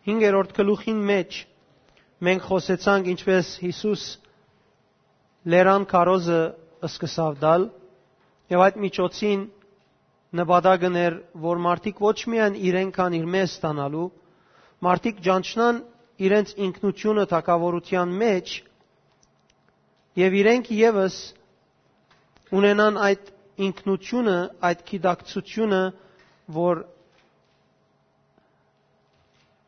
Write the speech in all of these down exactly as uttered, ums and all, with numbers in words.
Հինգերորդ գլուխին մէջ մենք խօսեցանք, ինչպէս Յիսուս լերան քարոզը սկսաւ տալ, եւ այդ միջոցին նպատակն էր, որ մարդիկ ոչ միայն իրենք կան իրմէ ստանալու, մարդիկ ճանչնան իրենց ինքնությունը թագաւորութեան մէջ, եւ իրենք եւս ունենան այդ ինքնությունը, այդ գիտակցությունը, որ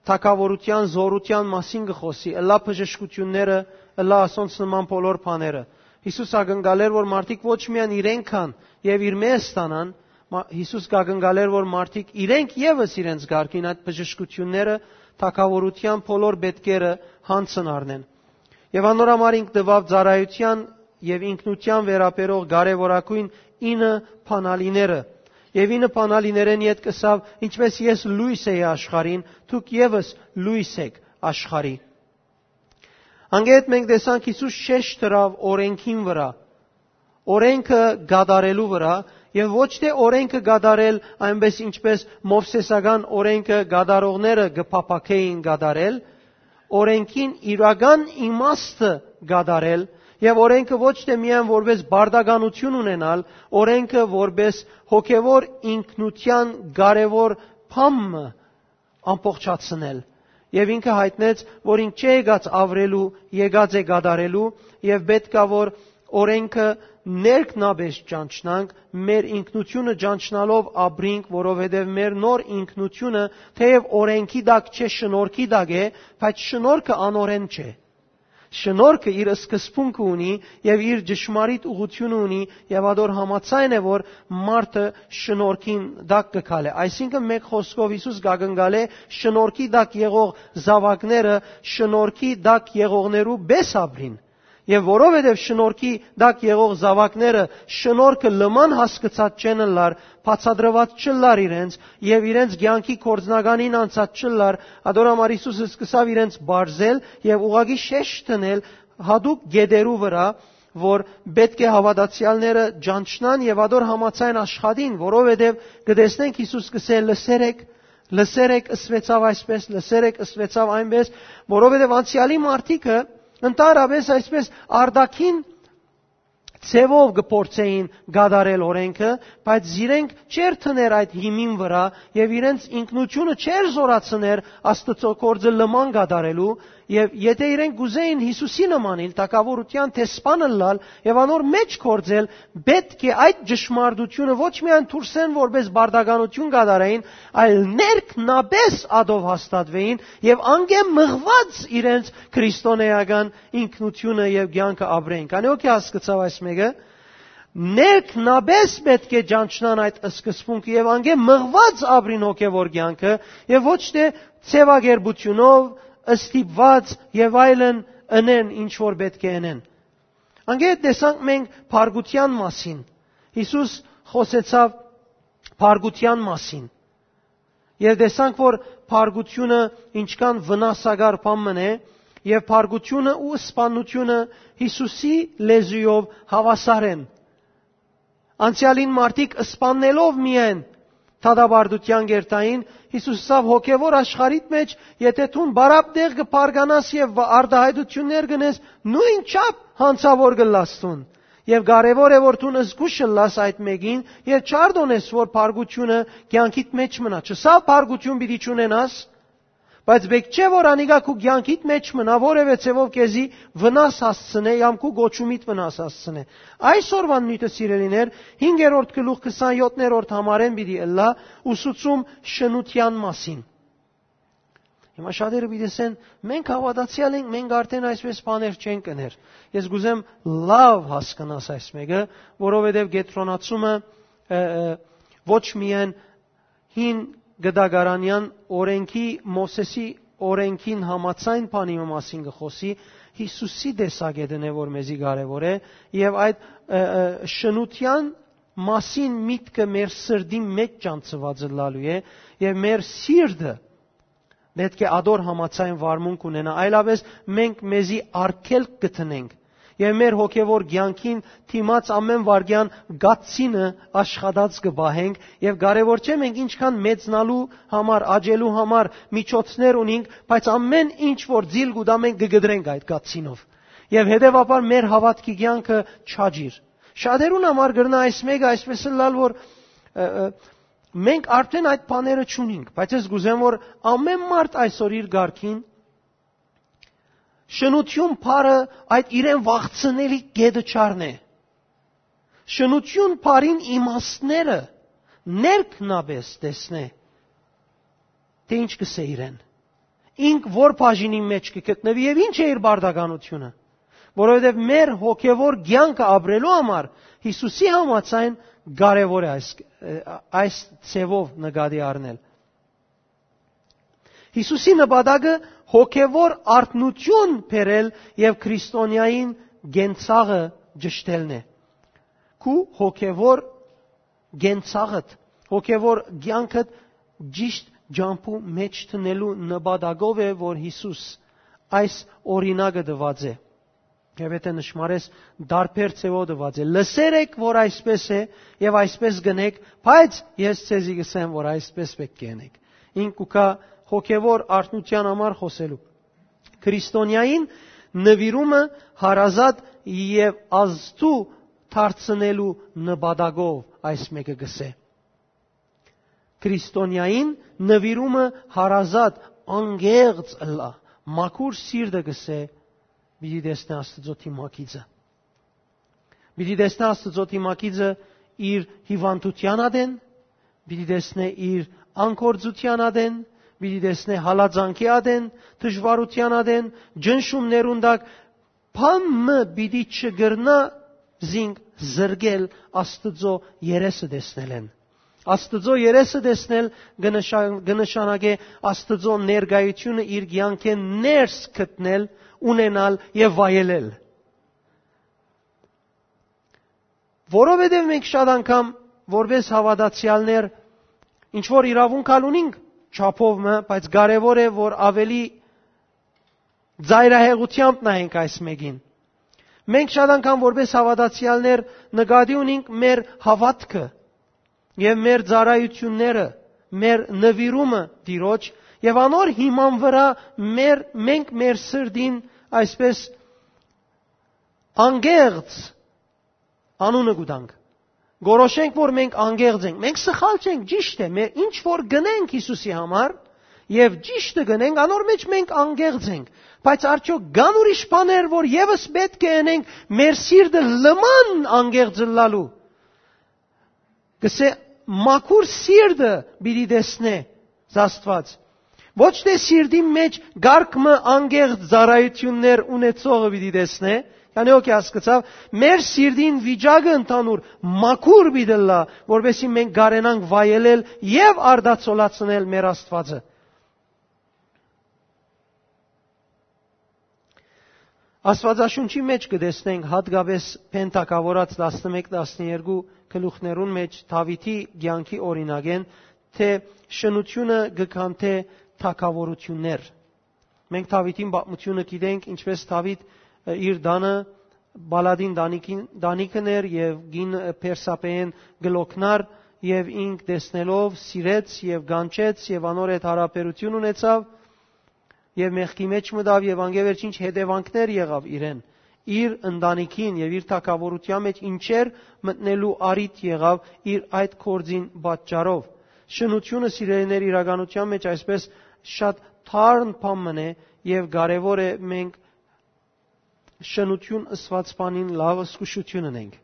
թագաւորութեան, զօրութեան մասին կը խօսի, ըլլայ բժշկութիւնները, ըլլայ ասոնց նման բոլոր բաները։ Յիսուս ակնկալեր, որ մարդիկ ոչ միայն իրենք կան եւ իրմէ ստանան, մա-, Յիսուս կակնկալեր, որ մարդիկ իրենք եւս իրենց կարգին այդ բժշկութիւնները, թագաւորութեան բոլոր պետքերը յանձն առնեն։ Եւ անոր համար ինք տուաւ ծառայութեան եւ ինքնութեան վերաբերող կարեւորագոյն ինը բանալիները։ Եւ ինը բանալիներէն ետք ըսաւ. «Ինչպէս ես լոյս էի աշխարհին, դուք եւս լոյս էք աշխարհի»։ Անկէ հետ մենք տեսանք Յիսուս շեշտ դրաւ օրէնքին վրայ, օրէնքը կատարելու վրայ, եւ ոչ թէ օրէնքը կատարել այնպէս, ինչպէս Մովսէսական օրէնքը կատարողները կը փափաքէին կատարել, օրէնքին իրական իմաստը կատարել, եւ օրէնքը ոչ թէ միայն որպէս պարտականութիւն ունենալ, օրէնքը որպէս հոգեւոր ինքնութեան կարեւոր բան մը ամբողջացնել։ Եւ ինքը յայտնեց, որ ինք չէ եկած աւրելու, եկած է կատարելու, եւ պէտք ա որ օրէնքը ներքնապէս ճանչնանք, մեր ինքնությունը ճանչնալով ապրինք, որովհետեւ մեր նոր ինքնությունը թէեւ օրէնքի տակ չէ, շնորհքի տակ է, բայց շնորհքը անօրէն չէ։ Շնորհքը իր սկզբունքը ունի եւ իր ճշմարիտ ուղղությունը ունի, եւ ատոր համաձայն է, որ մարդը շնորհքին տակ կը գալէ։ Այսինքն, մէկ խօսքով, Յիսուս կակնկալէ շնորհքի տակ եղող զաւակները շնորհքի տակ եղողներու պէս ապրին։ Եւ որովհետեւ շնորհքի տակ եղող զաւակները շնորհքը լման հասկցած չեն ըլլար, բացատրուած չըլլար իրենց եւ իրենց կեանքի գործնականին անցած չըլլար, ատոր համար Յիսուս սկսաւ իրենց բարձել եւ ուղղակի շեշտ դնել յատուկ գետերու վրայ, որ պէտք է հաւատացեալները ճանչնան եւ ատոր համաձայն աշխատին, որովհետեւ կը տեսնենք Յիսուս կ'ըսէ. «Լսեր էք, լսեր էք, ըսուեցաւ այսպէս, լսեր էք, ըսուեցաւ այնպէս», որովհետեւ անցեալի մարդիկը ընդհանրապէս այսպէս արտաքին ձեւով կը փորձէին կատարել օրէնքը, բայց զիրենք չէր դներ այդ հիմին վրայ եւ իրենց ինքնությունը չէր զորացներ Աստուծոյ գործը լման կատարելու, եւ եթէ իրենք կ'ուզէին Յիսուսի նմանիլ, թագաւորութեան դեսպան ըլլալ եւ անոր մէջ գործել, պէտք է այդ ճշմարտությունը ոչ միայն դուրսէն որպէս պարտականութիուն կատարեին, այլ ներքնապէս ատով հաստատուէին եւ անկէ մղուած իրենց քրիստոնէական ինքնությունը եւ կեանքը ապրեն։ Քանի՞ հոգի հասկցաւ այս մէկը, ներքնապէս պէտք է ճանչնան այդ սկզբունքը եւ անկէ մղուած ապրին հոգեւոր կեանքը, եւ ոչ թէ ձեւակերպութիւնով, ստիպուած եւ այլն ընեն, ինչ որ պէտք է ընեն։ Անկէ հետ տեսանք մենք փառքութեան մասին։ Յիսուս խօսեցաւ փառքութեան մասին։ Եւ տեսանք, որ փառքութիւնը ինչքան վնասակար բան մըն է, եւ փառքութիւնը ու սպաննութիւնը Յիսուսի լեզուով հաւասար են։ Անցեալին մարդիկ սպաննելով միայն դատապարտութեան կ'երթային, Յիսուս ըսաւ. «Հոգեւոր աշխարհիդ մէջ, եթէ դուն բարապ տեղ կը բարգանաս եւ արտայայտութիւններ կ'ընես, նոյնչափ յանցաւոր կ'ըլլաս դուն։ Եւ կարեւոր է, որ դուն զգոյշ ըլլաս այդ մէկին եւ չարտօնես, որ փառքութիւնը կեանքիդ մէջ մնայ»։ Չըսաւ փառքութիւն պիտի չունենաս, բայց պէտք չէ, որ անիկա քու կեանքիդ մէջ մնայ, որեւէ ձեւով քեզի վնաս հասցնէ, կամ քու կոչումիդ վնաս հասցնէ։ Այսօրուան նիւթը, սիրելիներ, հինգերորդ գլուխ, քսանյոթերորդ համարէն պիտի ըլլայ, ուսուցում շնութեան մասին։ Հիմա շատերը պիտի ասեն. «Մենք հաւատացեալ ենք, մենք արդեն այսպէս բաներ չենք ըներ»։ Ես կ'ուզեմ լաւ հասկնաս այս մէկը, որովհետեւ կեդրոնացումը, ը, ը, ոչ միայն հին գտակարանեան օրենքի, Մովսէսի օրենքին համաձայն բանի մը մասին կը խօսի, Յիսուսի տեսակետն է, որ մեզի կարեւոր է, եւ այդ, ը, ը, շնութեան մասին միտքը մեր սրտին մէջ ճանչցուած ըլլալու է, եւ մեր սիրտը պէտք է ադոր համաձայն վարմունք ունենայ, այլապէս մենք մեզի արգելք կը դնենք։ եւ մեր հոգեվոր կեանքին դիմաց ամէն վայրկեան կացինը աշխատած կը պահենք, եւ կարեւոր չէ մենք ինչքան մեծնալու համար, աճելու համար միջոցներ ունինք, բայց ամէն ինչ որ ձիլ կու տայ, մենք կը կտրենք այդ կացինով։ Եւ հետեւաբար մեր հաւատքի կեանքը չաճիր։ Շատերուն համար կրնայ այս մէկը այսպես ըլլալ, որ, ը, ը, մենք արդեն այդ բաները չունինք, բայց ես կ'ուզեմ, որ ամէն մարդ այսօր իր կարգին շնութիւն բառը այդ իրեն վախցնելի կետը չառնէ։ Շնութիւն բառին իմաստները ներքնապէս տեսնէ, թէ ինչ կ'ըսէ իրեն, ինք որ բաժինի մէջ կը գտնուի եւ ինչ է իր պարտականութիւնը, որովհետեւ մեր հոգեվոր կեանքը ապրելու համար Յիսուսի համաձայն կարեւոր է այս, այս ձեւով նկատի առնել։ Յիսուսի նպատակը հոգեվոր արթնութիւն բերել եւ քրիստոնեային կենցաղը ճշտելն է։ Քու հոգեվոր կենցաղդ, հոգեվոր կեանքդ ճիշտ ճամբու մէջ դնելու նպատակով է, որ Յիսուս այս օրինակը տուած է։ Եթէ նշմարես, տարբեր ձեւով տուած է։ Լսեր եք, որ այսպես է, եւ այսպես կ'ընէք, բայց ես ձեզի կ'ըսեմ, որ այսպես պէտք է ընէք։ Ինք կու գայ հոգեվոր արթնութեան համար խօսելու։ Քրիստոնեային նուիրումը հարազատ եւ ազդու դարձնելու նպատակով այս մէկը կ'ըսէ։ Քրիստոնեային նուիրումը հարազատ, անկեղծ ըլլայ, մաքուր սիրտը կ'ըսէ, պիտի տեսնէ Աստուծոյ դիմագիծը։ Պիտի տեսնէ Աստուծոյ դիմագիծը իր հիւանդութեան ատեն, պիտի տեսնէ իր անկործութեան ատեն, պիտի տեսնէ հալածանքի ատեն, դժուարութեան ատեն, ճնշումներուն տակ, բան մը պիտի չկրնայ զինք զրկել Աստուծոյ երեսը տեսնելէն։ Աստուծոյ երեսը տեսնել կը նշան-, կը նշանակէ Աստուծոյ ներկայութիւնը իր կեանքէն ներս գտնել, ունենալ եւ վայելել։ Որովհետեւ մենք շատ անգամ որպես հաւատացեալներ ինչ որ իրաւունք ալ ունինք չափով մը, բայց կարեւոր է, որ աւելի ծայրահեղութեամբ նայենք այս մէկին։ Մենք շատ անգամ որպես հաւատացեալներ նկատի ունինք մեր հաւատքը եւ մեր ծառայութիւնները, մեր նուիրումը Տիրոջ, եւ անոր հիման վրայ մեր, մենք մեր սրտին այսպես անկեղծ անունը կու տանք։ Գորոշենք, որ մենք անկեղծ ենք։ Մենք սխալ չենք, ճիշդ է, մեր ինչ որ գնենք Յիսուսի համար, եւ ճիշդը գնենք, անոր մէջ մենք անկեղծ ենք։ Բայց արդյոք կան ուրիշ բաներ, որ եւս պէտք է ընենք մեր սիրտը լման անկեղծ ըլլալու։ Կսէ, մաքուր սիրտը պիտի տեսնէ Աստուած։ Ոչ թէ սիրտին մէջ կարգ մը անկեղծ ծառայութիւններ ունեցողը պիտի տեսնէ, քանի օքի հասկցաւ, մեր սիրտին վիճակը ընդհանուր մաքուր պիտի ըլլայ, որպեսզի մենք կարենանք վայելել եւ արտացոլացնել մեր Աստուածը։ Աստուածաշունչի մէջ կը տեսնենք հատկապես Բեն թագաւորաց տասնմէկ տասներկու գլուխներուն մէջ Դաւիթի կեանքի օրինակէն, թէ շնութիւնը կը քանդէ թագաւորութիւններ։ Մենք Դաւիթին պատմութիւնը գիտենք, ինչպես Դաւիթ, ը, իր տանը Պալատին տանիքին, տանիքն էր եւ կին, ը, Բերսաբեէն կը լոգնար եւ ինք տեսնելով սիրեց եւ կանչեց եւ անոր հետ յարաբերութիւն ունեցավ եւ մեղքի մէջ մտավ եւ անկէ վերջինչ հետեւանքներ եղավ իրեն, իր ընտանիքին եւ իր թագաւորութեան մէջ ինչեր մտնելու առիթ եղավ իր այդ գործին պատճառով։ Շնութիւնը, սիրելիներ, իրականութեան մէջ այսպես շատ թարն բան մըն է եւ կարեւոր է մենք շնութիւն ըսուած բանին լաւ զգուշութիւն ընենք։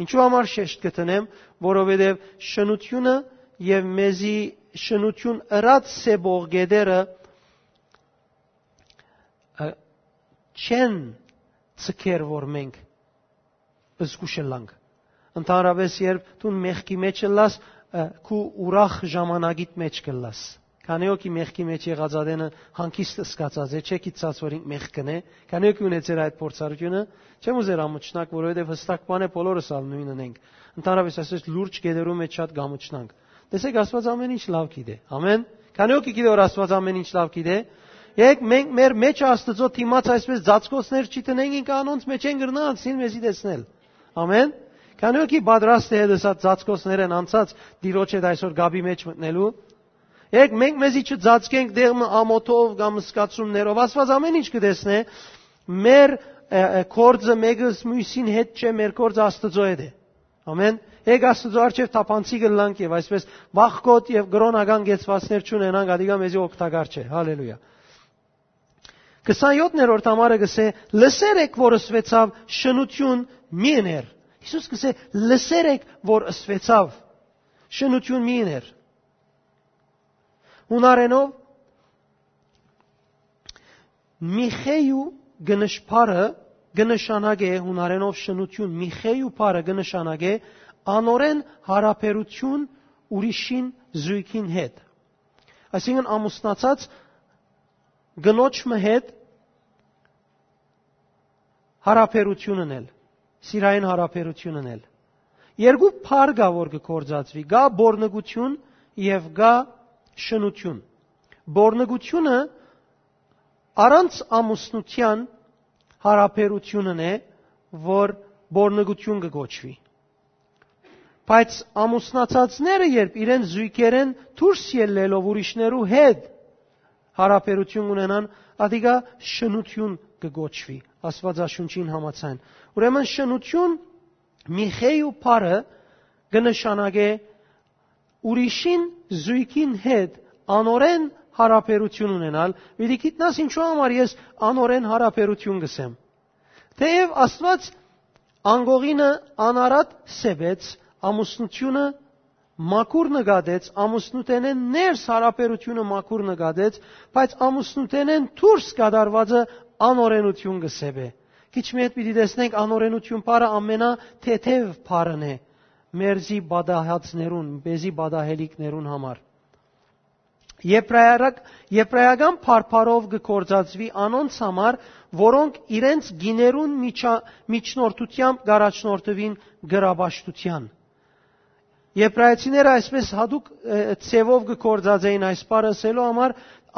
Ինչու համար շեշտ կը դնեմ, որովհետեւ շնութիւնը եւ մեզի շնութիւն ըրած սեպող գետերը, ը, չեն ցկեր, որ մենք զգուշ ըլլանք։ Ընդհանրապես, երբ դուն մեղքի մեջ ըլլաս, ը, քու ուրախ ժամանակիդ մեջ կ'ըլլաս։ Քանի օքի մեղքի մեջ եղած ատենը հանգիստ սկացած է, չէ՞ գիտցած, որ ինք մեղք կ'ընէ, քանի օքի ունեցեր այդ փորձառութիւնը, չեմ ուզեր ամուչնակ, որովհետեւ հստակ բան է, բոլորս ալ նոյնն ենք։ Ընդհանրապես, ասես լուրջ գետերու մեջ շատ կ'ամուչնանք։ Տեսեք, Աստուած ամեն ինչ լաւ գիտէ։ Ամեն։ Քանի օքի գիտէ, որ Աստուած ամեն ինչ լաւ գիտէ։ Եք մենք մեր մեջ Աստուծոյ դիմաց այսպես ծածկոցներ չի տնենք, ինքը անոնց մեջ են կրնայ անցնիլ մեզի տեսնել։ Ամեն։ Քանի որքի պատրաստ է հետս այդ ծածկոցներեն անցած Տիրոջ հետ այսօր գաբի մեջ մտնելու։ Եք մենք մեզի չծածկենք դեղ մը ամոթով կամ սկացումներով։ Աստված ամեն ինչ կտեսնէ, մեր, ը, ը, կորձը մեկը մյուսին հետ չէ, մեր կորձը Աստուծոյ հետ է։ Ամեն։ Եք Աստուծոյ առջեւ թափանցի կլանք եւ այսպես վախկոտ եւ կրոնական կեցվածքներ չունենանք, ադիկա մեզի օգտակար չէ։ Հալելույա։ Քսանյոթերորդ համարը կսե. «Լսեր եք, որ ըսուեցաւ, շնութիւն մի ըներ»։ Յիսուս կսե. «Լսեր եք, որ ըսուեցաւ, շնութիւն մի ըներ»։ Հունարենով միխեյու գնշ-, բառը կը նշանակէ, հունարենով շնութիւն, միխեյու բառը կը նշանակէ անօրէն յարաբերութիւն ուրիշին զոյգին հետ։ Այսինքն ամուսնացած կնոջ մը հետ յարաբերութիւն ընել, սիրային յարաբերութիւն ընել։ Երկու բառ կայ, որ կը գործածուի, կայ պոռնկութիւն եւ կայ շնութիւն։ Պոռնկութիւնը առանց ամուսնութեան յարաբերութիւնն է, որ պոռնկութիւն կը կոչուի։ Բայց ամուսնացածները, երբ իրենց զոյգերէն դուրս ելլելով ուրիշներու հետ յարաբերութիւն ունենան, ադիկա շնութիւն կը կոչուի Աստուածաշունչին համաձայն։ Ուրեմն շնութիւն, միխեյու բառը կը նշանակէ ուրիշին զոյգին հետ անօրէն յարաբերութիւն ունենալ։ Պիտի գիտնաս ինչու համար ես անօրէն յարաբերութիւն կ'ըսեմ։ Թէեւ Աստուած անկողինը անարատ սեպեց, ամուսնութիւնը մաքուր նկատեց, ամուսնութենէն ներս յարաբերութիւնը մաքուր նկատեց, բայց ամուսնութենէն դուրս կատարուածը անօրէնութիւն կը սեպէ։ Քիչ մը հետ պիտի տեսնենք, անօրէնութիւն բառը ամենաթեթեւ բառն է մերզի պատահածներուն, մեզի պատահելիքներուն համար։ Եբրայարակ-, եբրայական բարբառով կը գործածուի անոնց համար, որոնք իրենց գիներուն միջա-, միջնորդութեամբ կ'առաջնորդուին կրապաշտութեան։ Եբրայեցիները այսպես յատուկ, ը, ձևով կը գործածէին այս բառը ըսելու համար,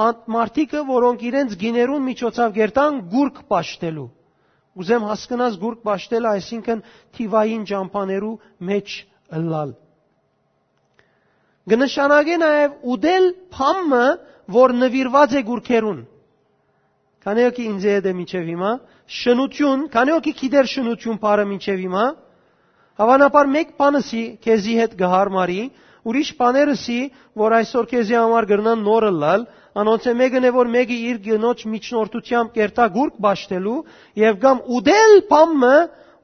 անդ մարդիկը, որոնք իրենց գիներուն միջոցաւ կերտան գուրգ պաշտելու։ Ուզեմ հասկնաս գուրգ պաշտելը, այսինքն թիվային ճամբաներու մեջ ըլլալ։ Կը նշանակէ նաեւ ուտել բան մը, որ նուիրուած է գուրգերուն։ Քանի՞ հոգի ինձ հետ է մինչեւ հիմա, շնութիւն, քանի՞ հոգի գիտեր շնութիւն բառը մինչեւ հիմա, հավանաբար մէկ բան ըսի քեզի հետ կը յարմարի, ուրիշ բաներ ըսի, որ այսօր քեզի համար կրնան նոր ըլլալ, անոնցէ մէկն է, որ մէկը իր կնոջ միջնորդութեամբ կերտայ գուրգ պաշտելու, եւ կամ ուտել բան մը,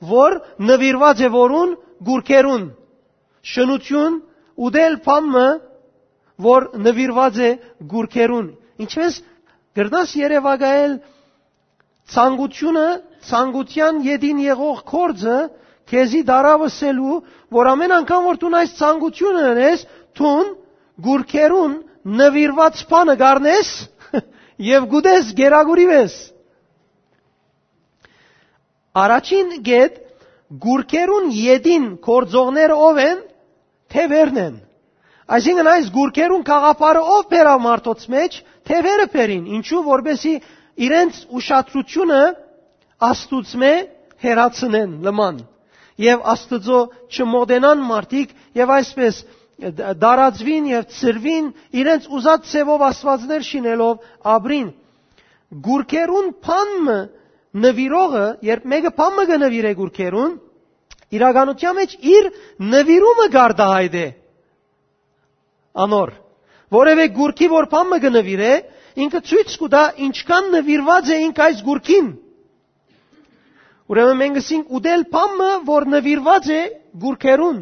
որ նուիրուած է որուն, գուրգերուն։ Շնութիւն, ուտել բան մը, որ նուիրուած է գուրգերուն։ Ինչպես կրնաս երեւակայել ցանկութիւնը, ցանկութեան ետին եղող գործը քեզի տարաւ ըսելու, որ ամեն անգամ որ դուն այս ցանկութիւնը ընես, դուն գուրգերուն նուիրուած բանը կ'առնես եւ կ'ուտես, կերակուրի ես։ Առաջին կետ, գուրգերուն ետին գործողները ո՞վ են, թեւերն են։ Այսինքն այս գուրգերուն գաղափարը ո՞վ բերաւ մարդոց մեջ, թեւերը բերին, ինչու, որպեսզի իրենց ուշադրութիւնը Աստուծմէ հեռացնեն լման, եւ Աստուծոյ չմոտենան մարդիկ, եւ այսպես դ-, դարածուին եւ ծրուին, իրենց ուզած ձևով աստվածներ շինելով ապրին։ Գուրգերուն բան մը նվիրողը, երբ մէկը բան մը կը նվիրէ գուրգերուն, իրականության մեջ իր նվիրումը կ'արտահայտէ անոր։ Որևէ գուրգի որ բան մը կը նվիրէ, ինքը ցոյց կու տայ ինչքան նվիրուած է ինք այս գուրգին։ Ուրեմն մենք ըսինք ուտել բան մը, որ նվիրուած է գուրգերուն։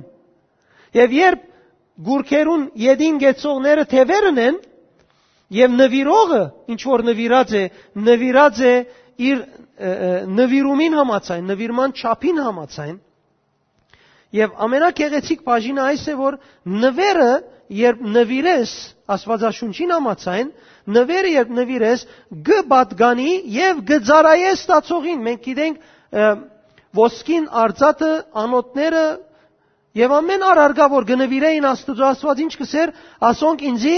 Եւ երբ գուրգերուն ետին կեցողները թեւերն են, եւ նվիրողը, ինչ որ նվիրած է, նվիրած է իր, ը, ը, նվիրումին համաձայն, նվիրման չափին համաձայն, եւ ամենագեղեցիկ բաժինը այս է, որ նվերը, երբ նվիրես, Աստուածաշունչին համաձայն, նվերը, երբ նվիրես, կը պատկանի եւ կը ծառայե ստացողին։ Մենք գիտենք, ը, ոսկին, արծաթը, անոթները, եւ ամեն առարկա, որ կը նվիրէին Աստուծոյ, Աստուած ինչ կ'ըսէր, ասոնք ինծի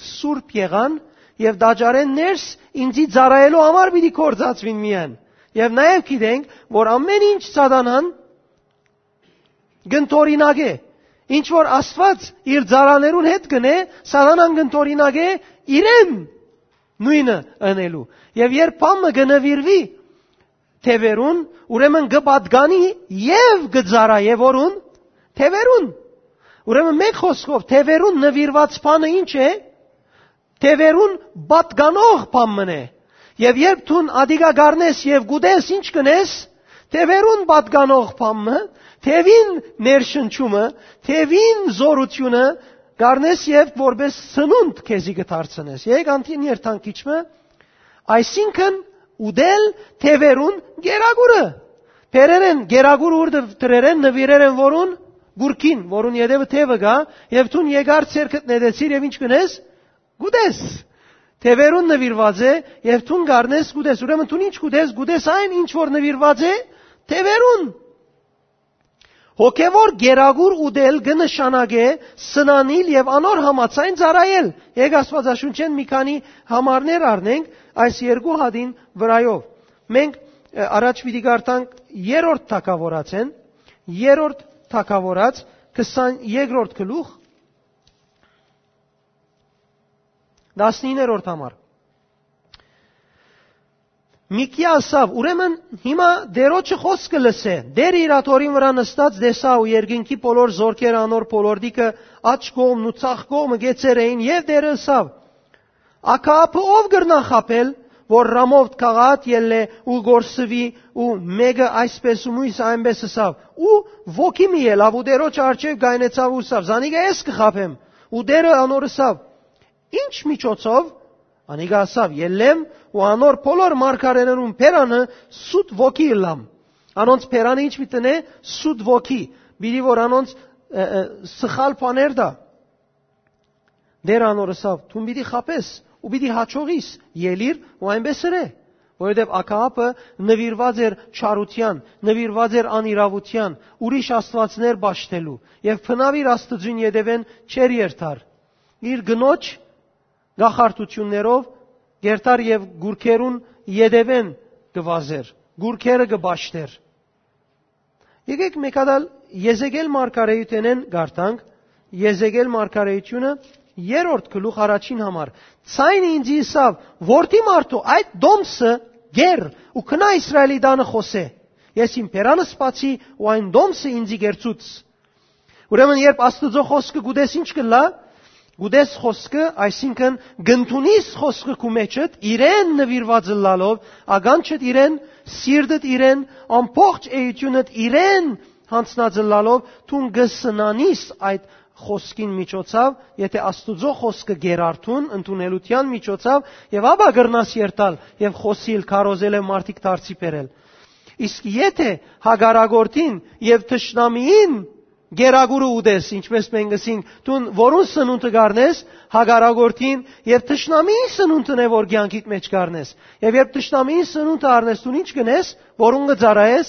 սուրբ եղան, եւ տաճարէն ներս ինծի ծառայելու համար պիտի գործածուին միայն։ Եւ նաեւ գիտենք, որ ամէն ինչ Սատանան կ'ընդօրինակէ, ինչ որ Աստուած իր ծառաներուն հետ կ'ընէ, Սատանան կ'ընդօրինակէ իրեն նոյնը ընելու։ Եւ երբ բան մը կը նուիրուի թեւերուն, ուրեմն կը պատկանի եւ կը ծառայէ որուն, թեւերուն։ Ուրեմն, մէկ խօսքով, թեւերուն նուիրուած բանը ի՞նչ է։ Թեւերուն պատկանող բան մըն է։ Եւ երբ դուն ադիկա կ'առնես եւ կ'ուտես, ի՞նչ կ'ընես։ Թեւերուն պատկանող բան մը, թեւին ներշնչումը, թեւին զօրութիւնը կ'առնես եւ որպէս սնունդ քեզի կը դարձնես։ Եկեք անդին երթանք քիչ մը, այսինքն՝ ուտել թեւերուն գերագուրը։ Բերեր են գերագուրը, ուր դրեր են, նուիրեր են որուն, գուրքին, որուն ետեւը թեւը կայ, եւ դուն եկար, ձեռքդ նետեցիր եւ ի՞նչ կ'ընես։ Կ'ուտես։ Թեւերուն նուիրուած է, եւ դուն կ'առնես, կ'ուտես։ Ուրեմն դուն ի՞նչ կ'ուտես, կ'ուտես այն, ինչ որ նուիրուած է թեւերուն։ Հոգեւոր գերագուր ուտել կը նշանակէ սնանիլ եւ անոր համաձայն ծառայել։ Եկեք Աստուածաշունչէն մի քանի համարներ առնենք այս երկու հատին վրայով։ Մենք, ը, առաջ պիտի կարդանք երրորդ թագաւորացէն, երրորդ թագաւորաց, քսաներկրորդ գլուխ, տասնիններորդ համար։ Միքիա ըսաւ. «Ուրեմն հիմա Տէրոջը խօսքը լսէ»։ Տէրը իր աթոռին վրայ նստած տեսայ ու երկնքի բոլոր զօրքերը անոր բոլորտիքը, աջ կողմն ու ձախ կողմը կեցեր էին, եւ Տէրը ըսաւ. «Աքաաբը ո՞վ կրնայ խաբել, որ Ռամովթ Գաղաատ ելլէ ու կորսուի ու մէկը այսպէս ու միւսը այնպէս»։ Ըսաւ, ու ոգի մը ելաւ ու Տէրոջը առջեւ կայնեցաւ ու ըսաւ. «Զանիկա ես կը խաբեմ»։ Ու Տէրը անոր ըսաւ. «Ի՞նչ միջոցով»։ Անիկա ըսաւ. «Ելլեմ ու անոր բոլոր մարգարէներուն բերանը սուտ ոգի ըլլամ»։ Անոնց բերանը ի՞նչ պիտի ընէ։ Սուտ ոգի, պիտի որ անոնց, ը, ը, սխալ բաներ տայ։ Տէրը անոր ըսաւ. «Դուն պիտի խաբես ու պիտի յաջողիս, ելիր ու այնպէս ըրէ»։ Որովհետեւ Աքաաբը նուիրուած էր չարութեան, նուիրուած էր անիրաւութեան, ուրիշ աստուածներ պաշտելու, եւ բնաւ իր Աստուծոյն ետեւէն չէր երթար։ Իր կնոջ կախարդութիւններով կ'երթար եւ գուրքերուն ետեւէն կը վազէր, գուրքերը կը պաշտէր։ Եկեք մէկ հատ ալ Եզեկիել մարգարէութենէն կարդանք, Եզեկիել մարգարէութիւնը, երրորդ գլուխ, առաջին համար։ Ձայնը ինծի ըսաւ. «Որդի մարդու, այդ տոմսը կեր ու գնա Իսրայէլի տանը խօսէ. ես իմ բերանս բացի ու այն տոմսը ինծի կերցուց»։ Ուրեմն երբ Աստուծոյ խօսքը կ'ուտես, ի՞նչ կ'ըլլայ։ Կ'ուտես խօսքը, այսինքն՝ կ'ընդունիս խօսքը քու մէջդ, իրեն նուիրուած ըլլալով, ականջդ իրեն, սիրտդ իրեն, ամբողջ էութիւնդ իրեն յանձնած ըլլալով, դուն կը սնանիս այդ խօսքին միջոցով, եթէ Աստուծոյ խօսքը կերարթուն ընդունելութեան միջոցով, եւ ապա կրնաս երթալ եւ խօսիլ, քարոզել եւ մարդիկ դարձի բերել։ Իսկ եթէ հակառակորդին եւ թշնամիին գերագուրը ուտես, ինչպես մենք ըսինք, դուն որուն սնունդը կ'առնես, հակառակորդին եւ թշնամիին սնունդն է, որ կեանքիդ մէջ կ'առնես։ Եւ երբ թշնամիին սնունդը առնես, դուն ի՞նչ կ'ընես, որուն կը ծառայես,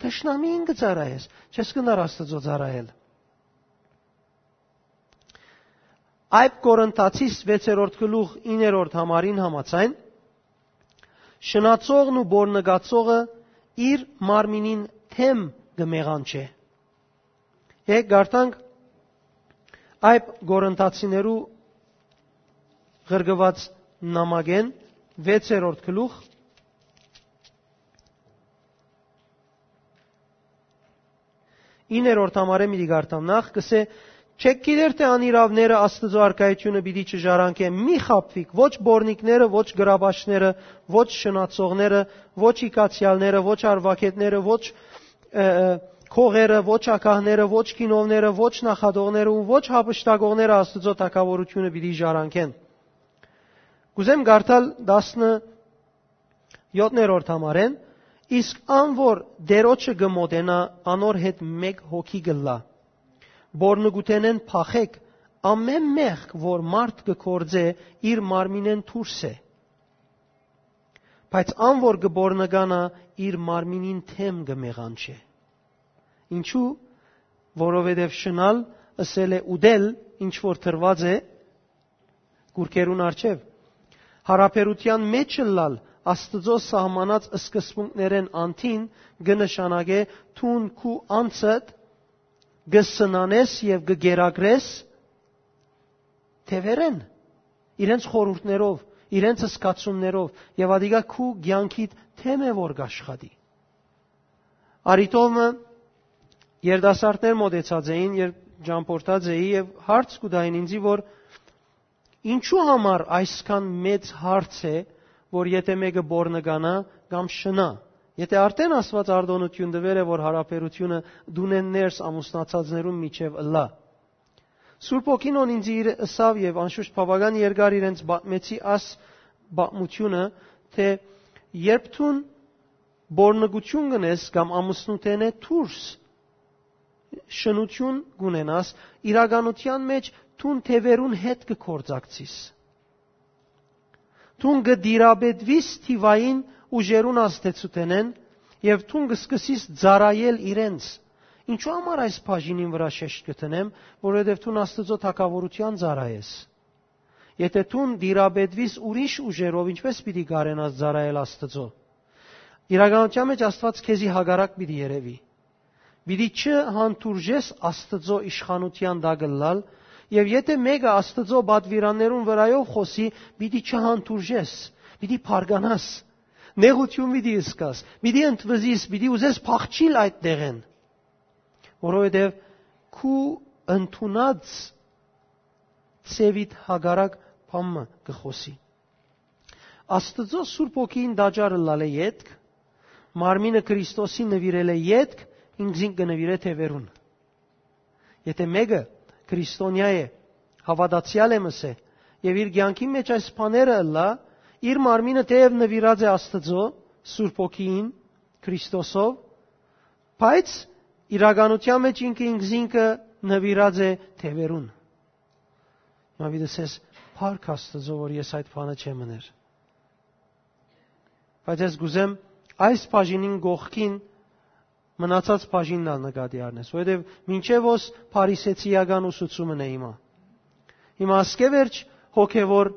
թշնամիին կը ծառայես, չես կրնար Աստուծոյ ծառայել։ Այդ Կորինթացիս վեցերորդ գլուխ, իններորդ համարին համաձայն, շնացողն ու բորնկացողը իր մարմինին դէմ կը մեղանչէ։ Եկեք կարդանք այդ Կորինթացիներու ղրկուած նամակէն վեցերորդ գլուխ, իններորդ համարէն պիտի կարդամ նախ, կ'ըսէ. «Չէք գիտեր թէ անիրաւները Աստուծոյ արքայութիւնը պիտի չժառանգեն։ Մի խաբուիք, ոչ բորնիկները, ոչ գրաբաշները, ոչ շնացողները, ոչ իգացեալները, ոչ արուակէտները, ոչ, ը, ը, քողերը, ոչ ագահները, ոչ գինովները, ոչ նախատողները ու ոչ յափշտակողները Աստուծոյ թագաւորութիւնը պիտի ժառանգեն»։ Կ'ուզեմ կարդալ տասնյոթերորդ համարէն. «Իսկ ան որ Տէրոջը կը մօտենայ, անոր հետ մէկ հոգի կ'ըլլայ։ Բորնկութենէն փախէք, ամէն մեղք որ մարդ կը գործէ, իր մարմինէն դուրս է։ Բայց ան որ կը բորնկանայ, իր մարմինին դէմ կը մեղանչէ»։ Ինչու՞։ Որովհետեւ շնալ ըսել է ուտել, ինչ որ դրուած է կուրքերուն առջեւ։ Յարաբերութեան մէջ ըլլալ Աստուծոյ սահմանած սկզբունքներէն անդին կը նշանակէ դուն քու անձդ կը սնանես եւ կը կերակրես թեւերէն, իրենց խորհուրդներով, իրենց զգացումներով, եւ ատիկա քու կեանքիդ թեմ է որ կաշխատի։ Արիտովը երիտասարդներ մօտեցած էին, երբ ճամփորդած էի, եւ հարց կու տային ինձի, որ ինչու համար այսքան մեծ հարց է, որ եթէ մէկը բորնկանայ կամ շնայ, եթէ արդէն Աստուած արտօնութիւն տուեր է, որ յարաբերութիւնը տունէն ներս ամուսնացածներուն միջեւ ըլլայ։ Սուրբ Հոգին, ուն ինձ իր ըսաւ, եւ անշուշտ բաւական երկար իրենց պատմեցի աս պատմութիւնը, թէ երբ դուն բորնկութիւն կ'ընես կամ ամուսնութենէ դուրս շնութիւն կ'ունենաս, իրականութեան մէջ դուն թեւերուն հետ կը գործակցիս։ Դուն կը տիրապետուիս թիւային ուժերուն ազդեցութենէն եւ դուն կը սկսիս ծառայել իրենց։ Ինչու համար այս բաժինին վրայ շեշտ կը դնեմ, որովհետեւ դուն Աստուծոյ թագաւորութեան ծառայես։ Եթէ դուն տիրապետուիս ուրիշ ուժերով, ինչպէս պիտի կարենաս ծառայել Աստուծոյ։ Իրականութեան մէջ Աստուած քեզի հակառակ պիտի երեւի։ Պիտի չհանդուրժես Աստուծոյ իշխանութեան տակ ըլլալ, եւ եթէ մէկը Աստուծոյ պատուիրաններուն վրայով խօսի, պիտի չհանդուրժես, պիտի փառկանաս, նեղութիւն պիտի զգաս, պիտի ընդվզիս, պիտի ուզես փախչիլ այդ տեղէն, որովհետեւ քու ընդունած ձեւիդ հակառակ բան մը կը խօսի։ Աստուծոյ Սուրբ Հոգին տաճար ըլլալէ ետք, մարմինը Քրիստոսի նուիրելէ ետք, ինքզինք կը նուիրէ թեւերուն։ Եթէ մէկը քրիստոնեայ է, հաւատացեալ է, մըսէ, եւ իր կեանքին մէջ այս բաները ըլլայ, իր մարմինը թէեւ նուիրած է Աստուծոյ Սուրբ Հոգիին, Քրիստոսով, բայց իրականութեան մէջ ինքը ինքզինքը նուիրած է թեւերուն։ Հիմա պիտի ասես, փառք Աստուծոյ, որ ես այդ բանը չեմ ըներ։ Բայց ես կ'ուզեմ այս բաժինին կողքին մնացած բաժինն ալ նկատի առնես, որովհետեւ մինչեւ ոս փարիսեցիական ուսուցումն է հիմա։ Հիմա ասկէ վերջ հոգեվոր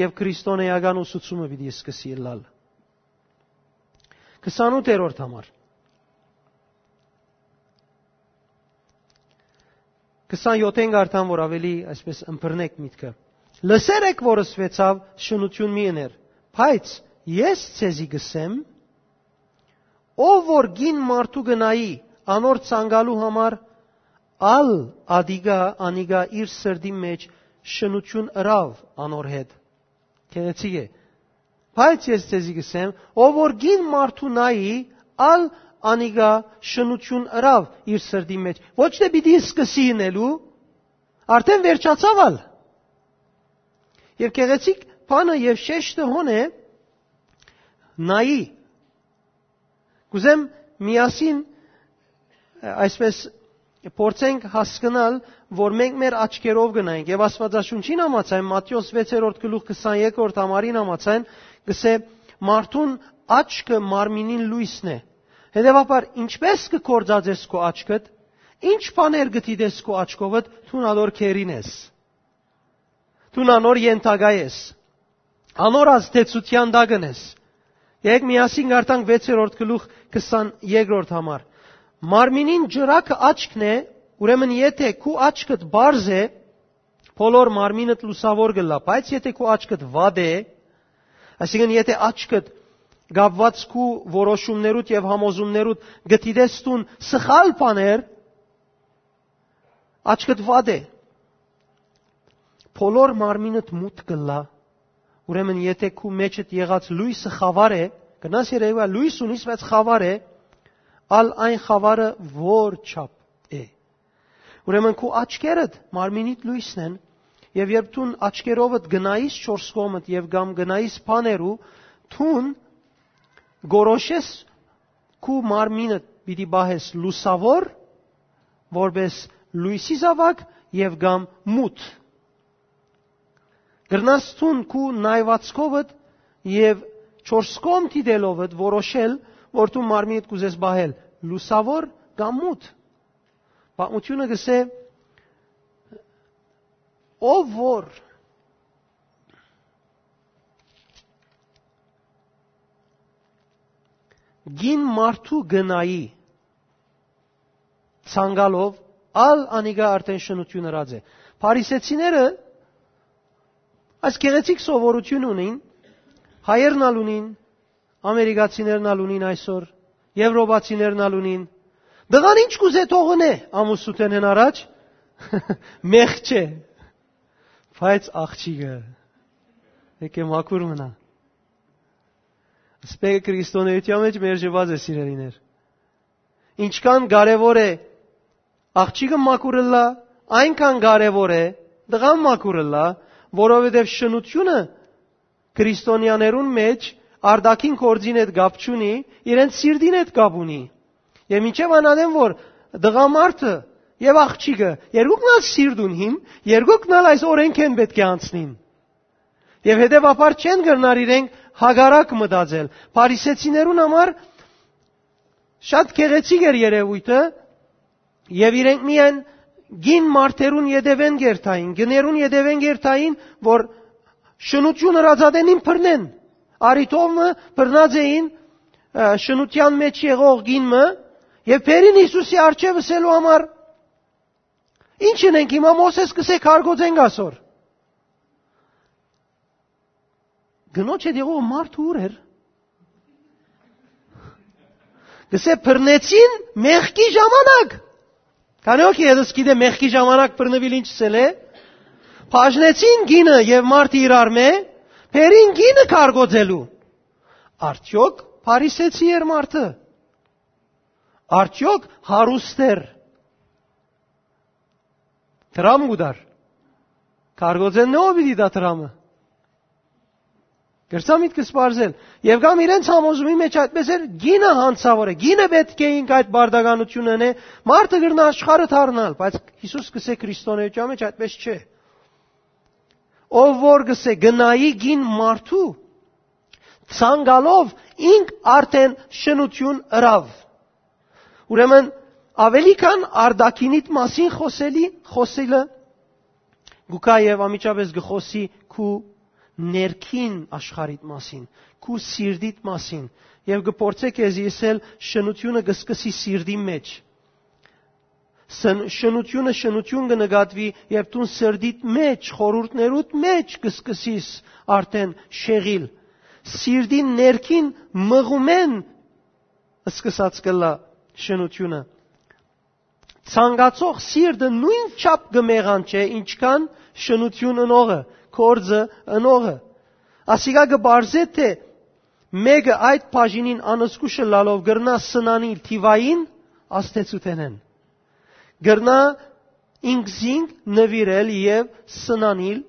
եւ քրիստոնեական ուսուցումը պիտի սկսի ըլլալ։ Քսանութերորդ համար։ Քսանյոթ կ'արդամ, որ աւելի այսպես ըմբռնեք միտքը։ Լսեր եք, որ ըսուեցաւ. «Շնութիւն մի ըներ»։ Բայց ես ձեզի կ'ըսեմ, ով որ կին մարդու կը նայի անոր ցանկալու համար, ալ ատիկա, անիկա իր սրտին մէջ շնութիւն ըրաւ անոր հետ։ Գեղեցիկ է։ Բայց ես ձեզի կ'ըսեմ, ով որ կին մարդու նայի, ալ անիկա շնութիւն ըրաւ իր սրտին մէջ։ Ոչ թէ պիտի սկսի ընելու, արդէն վերջացաւ ալ։ Եւ գեղեցիկ բանը եւ շեշտը հոն է, նայի։ Կ'ուզեմ միասին, այսպես, փորձենք հասկնալ, որ մենք մեր աչքերով կը նայենք։ Եւ Աստուածաշունչին համաձայն, Մատթէոս վեցերորդ գլուխ քսաներկրորդ համարին համաձայն, կ'ըսէ. «Մարդուն աչքը մարմինին լոյսն է»։ Հետեւաբար, ինչպէս կը գործածես քու աչքդ, ինչ բաներ կը դիտես քու աչքովդ, դուն ալոր գերին ես։ Դուն անոր ենթակայ ես, անոր ազդեցութեան տակ ես։ Եկեք միասին կարդանք վեցերորդ գլուխ քսաներկրորդ համար։ Մարմինին ճրագը աչքն է, ուրեմն եթէ քու աչքդ պարզ է, բոլոր մարմինդ լուսաւոր կ'ըլլայ, բայց եթէ քու աչքդ վատ է, այսինքն եթէ աչքդ կապուած քու որոշումներուդ եւ համոզումներուդ կը դիտես դուն սխալ բաներ, աչքդ վատ է, բոլոր մարմինդ մութ կ'ըլլայ, ուրեմն եթէ քու մէջդ եղած լոյսը խաւար է, կրնաս երեւի լոյս ունիս, բայց խաւար է, ալ այն խաւարը որ չափ է։ Ուրեմն քու աչքերդ մարմինիդ լոյսն են, եւ երբ դուն աչքերովդ գնայիս չորս կողմդ եւ կամ գնայիս բաներու, դուն գորոշես քու մարմինը պիտի պահես լուսաւոր, որպես լոյսի զաւակ եւ կամ մութ։ Կրնաս դուն քու նայվածքովդ եւ չորս կողմ դիտելովդ որոշել, որ դու մարմինդ կ'ուզես պահել լուսաւոր կամ մութ։ Պատմութիւնը կ'ըսէ, ով որ կին մարդու կը նայի ցանկալով, ալ անիկա արդէն շնութիւն ըրած է։ Փարիսեցիները այս գեղեցիկ սովորութիւն ունին, հայերն ալ ունին, ամերիկացիներն ալ ունին այսօր, եվրոպացիներն ալ ունին։ Տղան ինչ կուզէ թողնէ ամուսնութենէն առաջ, մեղք չէ, բայց աղջիկը եկե մաքուր մնայ։ Սպեքը քրիստոնէութեան մէջ մերժուած է, սիրելիներ։ Ինչքան կարեւոր է աղջիկը մաքուր ըլլայ, այնքան կարեւոր է տղան մաքուր ըլլայ, որովհետեւ շնութիւնը քրիստոնեաներուն մէջ արտաքին գործին հետ կապ չունի, իրենց սիրտին հետ կապ ունի։ Եւ մինչեւ անատեմ որ տղամարդը եւ աղջիկը երկուքն ալ սիրտ ունին, երկուքն ալ այս օրէնքէն պէտք է անցնին։ Եւ հետեւաբար չեն կրնար իրենք հակառակ մտածել։ Փարիսեցիներուն համար շատ գեղեցիկ էր երեւոյթը, եւ իրենք միայն կին մարդերուն ետեւէն կ'երթային, կիներուն ետեւէն կ'երթային, որ շնութիւն ըրածատենին բռնեն։ Արի թով մը բռնած էին, ը, շնութեան մէջ եղող կին մը, եւ բերին Յիսուսի առջեւ ըսելու համար. «Ի՞նչ ընենք հիմա, Մովսէս կ'ըսէ, քարկոծենք ասոր»։ Կնոջ հետ եղող մարդը ո՞ւր էր։ Կ'ըսէ, բռնեցին մեղքի ժամանակ։ Քանի՞ հոգի ետս գիտէ մեղքի ժամանակ բռնուիլ ինչ ըսել է։ Բաժնեցին կինը եւ մարդը իրարմէ, բերին կինը քարկոծելու։ Արդյոք Փարիսեցի՞ էր մարդը։ Արդյոք հարուստ էր։ Դրամ կու տար։ Քարկոծեն նո պիտի տայ դրամը։ Կրցա միտքս պարզել։ Եւ կամ իրենց համոզումի մեջ այդպես էր, կինը հանցաւոր է, կինը պէտք է ինք այդ պարտականությունը ընէ, մարդը կրնայ աշխարհը դառնալ, բայց Յիսուս կ'ըսէ քրիստոնէութեան մեջ այդպես չէ։ Ով որ կ'ըսէ, կը նայի կին մարդու, ցանկալով ինք արդէն շնութիւն ըրաւ։ Ուրեմն, աւելի քան արտաքինիդ մասին խօսելի, խօսելը, գուկա եւ անմիջապէս կը խօսի քու ներքին աշխարհիդ մասին, քու սիրտիդ մասին, եւ կը փորձէ քեզի ըսել, շնութիւնը կը սկսի սիրտի մեջ։ Սն-, շնութիւնը շնութիւն կը նկատուի, երբ դուն սրտիդ մեջ, խորհուրդներուդ մեջ կը սկսիս արդէն շեղիլ։ Սիրտին ներքին մղումէն սկսած կ'ըլլայ շնութիւնը։ Ցանկացող սիրտը նոյնչափ կը մեղանչէ, ինչքան շնութիւն ընողը, գործը ընողը։ Ասիկա կը պարզէ, թէ մէկը այդ բաժինին անզգուշ ըլլալով կրնայ սնանիլ թիվային ազդեցութենէն։ Կրնայ ինքզինք նուիրել եւ սնանիլ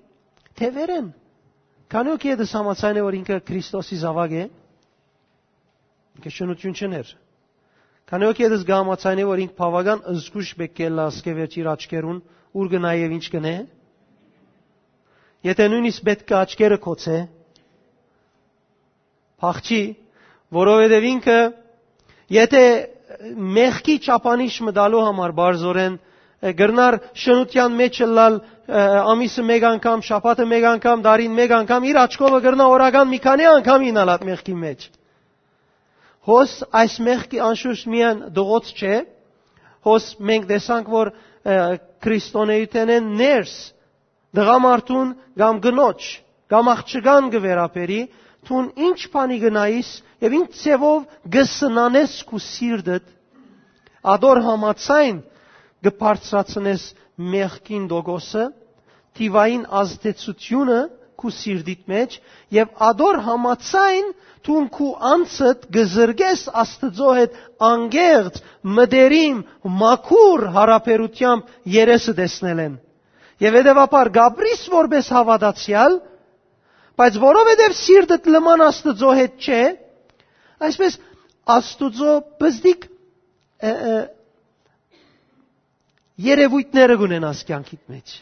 թեւերէն։ Քանի՞ հոգի ետս համաձայն է, որ ինքը Քրիստոսի զաւակ է, ինքը շնութիւն չըներ։ Քանի՞ հոգի ետս կը համաձայնէ, որ ինք բաւական զգուշ պէտք է ըլլայ ասկէ վերջ իր աչքերուն, ուր կը նայ եւ ինչ կ'ընէ։ Եթէ նոյնիսկ պէտք է աչքերը գոցէ, փախչի, որովհետեւ ինքը, եթէ մեղքի չափանիշ մտալու համար բարձորեն, ը, կրնար շնութեան մեջ ըլլալ, ը, ամիսը մէկ անգամ, շաբաթը մէկ անգամ, դարին մէկ անգամ, իր աչքովը կրնայ օրական մի քանի անգամ իյնալ այդ մեղքի մեջ։ Հոս այս մեղքի անշուշտ միայն դղոց չէ, հոս մենք տեսանք, որ, ը, քրիստոնէութենէն ներս տղամարդուն կամ կնոջ, կամ աղջկան կը վերաբերի, դուն ինչ բանի կը նայիս եւ ինչ ձեւով կը սնանես քու սիրտդ, ադոր համաձայն կը բարձրացնես մեղքին տոկոսը, թիվային ազդեցությունը քու սիրտիդ մեջ, եւ ադոր համաձայն դուն քու անձդ կը զրկես Աստուծոյ հետ անկեղծ, մտերիմ, մաքուր յարաբերութեամբ երեսը տեսնելէն։ Եւ հետեւաբար կ'ապրիս որպէս հաւատացեալ, բայց որովհետեւ սիրտդ լման Աստուծոյ հետ չէ, այսպես Աստուծոյ պզտիկ, ը, ը, երեւոյթները կունենաս կեանքիդ մեջ։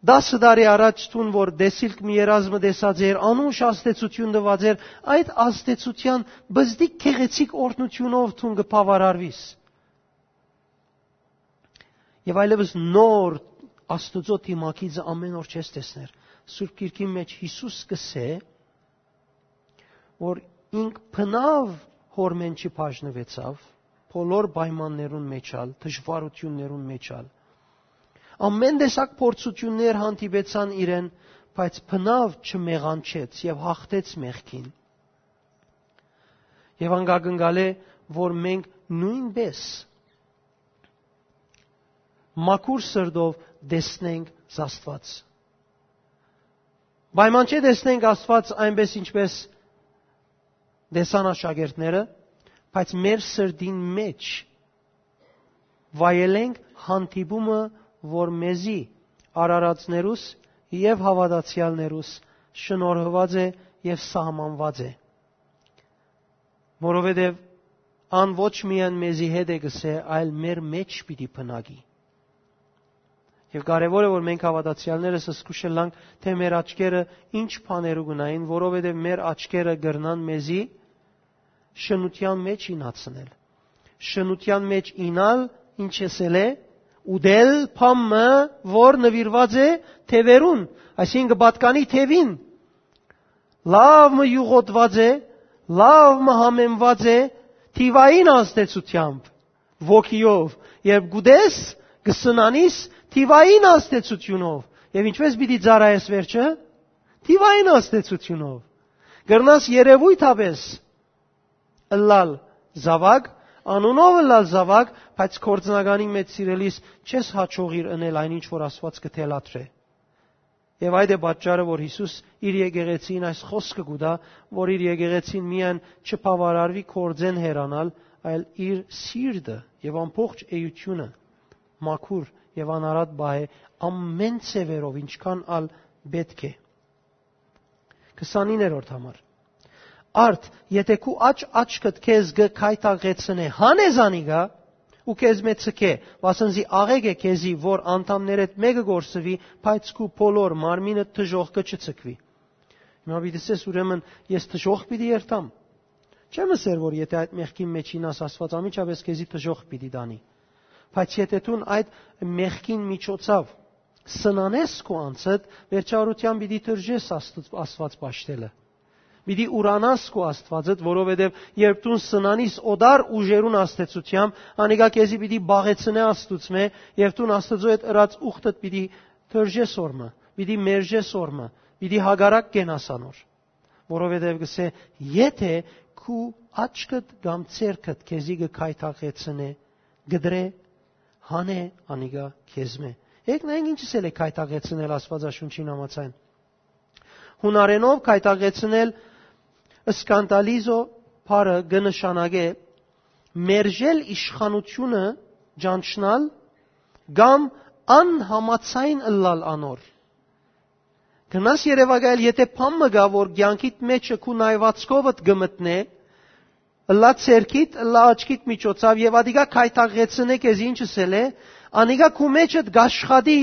Տասը տարի առաջ դուն որ տեսիլք մի երազմը տեսած էր, անուշ ազդեցութիւն տուած էր, այդ ազդեցութեան պզտիկ գեղեցիկ օրհնութիւնով դուն կը բաւարարուիս։ Եւ այլեւս նոր Աստուծոյ դիմագիծը ամէն օր չես տեսներ։ Սուրբ Գիրքին մեջ Յիսուս կ'ըսէ, որ ինք բնաւ հորմէն չի բաժնուեցաւ, բոլոր պայմաններուն մեջ ալ, դժուարութիւններուն մեջ ալ։ Ամեն տեսակ փորձութիւններ հանդիպեցան իրեն, բայց բնաւ չմեղանչեց եւ հաղթեց մեղքին։ Եւ անկա կնկալէ, որ մենք նոյնպէս մաքուր սրտով տեսնենք Աստուած։ Պայման չէ տեսնենք Աստուած այնպես, ինչպես տեսան աշակերտները, բայց մեր սրտին մեջ վայելենք հանդիպումը, որ մեզի արարածներուս եւ հաւատացեալներուս շնորհուած է եւ սահմանուած է, որովհետեւ ան ոչ միայն մեզի հետ է կ'ըսէ, այլ մեր մեջ պիտի բնակի։ Եւ կարեւոր է, որ մենք հաւատացեալներս զգուշ ըլլանք, թէ մեր աչքերը ինչ բաներու կ'ունին, որովհետեւ մեր աչքերը կրնան մեզի շնութեան մեջ իյնացնել։ Շնութեան մեջ իյնալ, ինչ ըսել է, ուտել բան մը, որ նուիրուած է թեւերուն, այսինքն՝ կը պատկանի թեւին, լաւ մը իւղոտուած է, լաւ մը համեմուած է թիւային ազդեցութեամբ, ոգիով, երբ կ'ուտես, կը սնանիս թիւային ազդեցութիւնով։ Եւ ինչպես պիտի ծառայես վերջը, թիւային ազդեցութիւնով։ Կրնաս երեւոյթապէս ըլլալ զաւակ, անունով ըլլալ զաւակ, բայց գործնականին մեջ, սիրելիս, չես յաջողիր ընել այն ինչ որ Աստուած կը թելադրէ։ Եւ այդ է պատճառը, որ Յիսուս իր եկեղեցին այս խօսքը կու տայ, որ իր եկեղեցին միայն չբաւարարուի գործէն հեռանալ, այլ իր սիրտը եւ ամբողջ էությունը մաքուր եւ անարատ պահէ ամեն ձեւերով, ինչքան ալ պէտք է։ Քսանիններորդ համար։ Արդ, եթէ քու աջ աչքդ քեզ կը գայթակղեցնէ, հանէ զանիկա ու քեզմէ ցկէ, վասն զի աղէկ է քեզի, որ անդամներէդ մէկը կորսուի, բայց քու բոլոր մարմինդ դժոխքը չցկուի։ Հիմա պիտի ըսես, ուրեմն ես դժոխք պիտի երթամ։ Չեմ ըսեր, որ եթէ այդ մեղքին մեջ իյնաս, Աստուած անմիջապէս քեզի դժոխք պիտի տանի։ Բայց եթէ դուն այդ մեղքին միջոցաւ սնանես քու անձդ, վերջավորութեան պիտի դրժես Աստուած, Աստուած պաշտելը։ Պիտի ուրանաս քու Աստուածդ, որովհետեւ երբ դուն սնանիս օտար ուժերուն ազդեցութեամբ, անիկա քեզի պիտի պաղեցնէ Աստուծմէ, եւ դուն Աստուծոյ հետ ըրած ուխտդ պիտի դրժես օրմը, պիտի մերժես օրմը, պիտի հակառակ կենաս անոր, որովհետեւ կ'ըսէ, եթէ քու աչքդ կամ ձեռքդ քեզի կը գայթակղեցնէ, կտրէ, հանէ անիկա քեզմէ։ Եկեք նայենք ինչ ըսել է գայթակղեցնել Աստուածաշունչին համաձայն։ Յունարէնով գայթակղեցնել, սկանդալիզո բառը կը նշանակէ մերժել իշխանությունը, ճանչնալ կամ անհամաձայն ըլլալ անոր։ Կրնաս երեւակայել, եթէ բան մը կայ, որ կեանքիդ մէջը քու նայուածքովդ կը մտնէ, ըլլայ ձեռքիդ, ըլլայ աչքիդ միջոցաւ, եւ ատիկա գայթակղեցնէ քեզի, ինչ ըսել է, անիկա քու մէջդ կ'աշխատի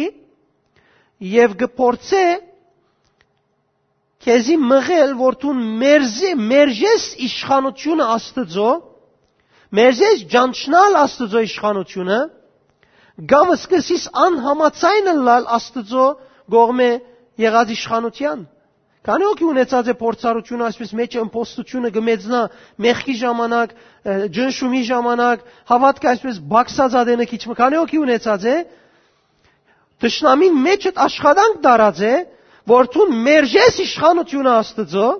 եւ կը փորձէ քեզի մղել, որ դուն մերժ-, մերժես իշխանությունը Աստուծոյ, մերժես ճանչնալ Աստուծոյ իշխանությունը, կամ սկսես անհամաձայն ըլլալ Աստուծոյ կողմէ եղած իշխանութեան։ Քանի՞ հոգի ունեցած է փորձառությունը, այսպես, մէջը ըմբոստությունը կը մեծնայ մեղքի ժամանակ, ը, ճնշումի ժամանակ, հաւատքը այսպես բացած ատենը քիչ մը, քանի՞ հոգի ունեցած է, թշնամին մէջդ աշխատանք դարած է, որ դուն մերժես իշխանությունը Աստուծոյ,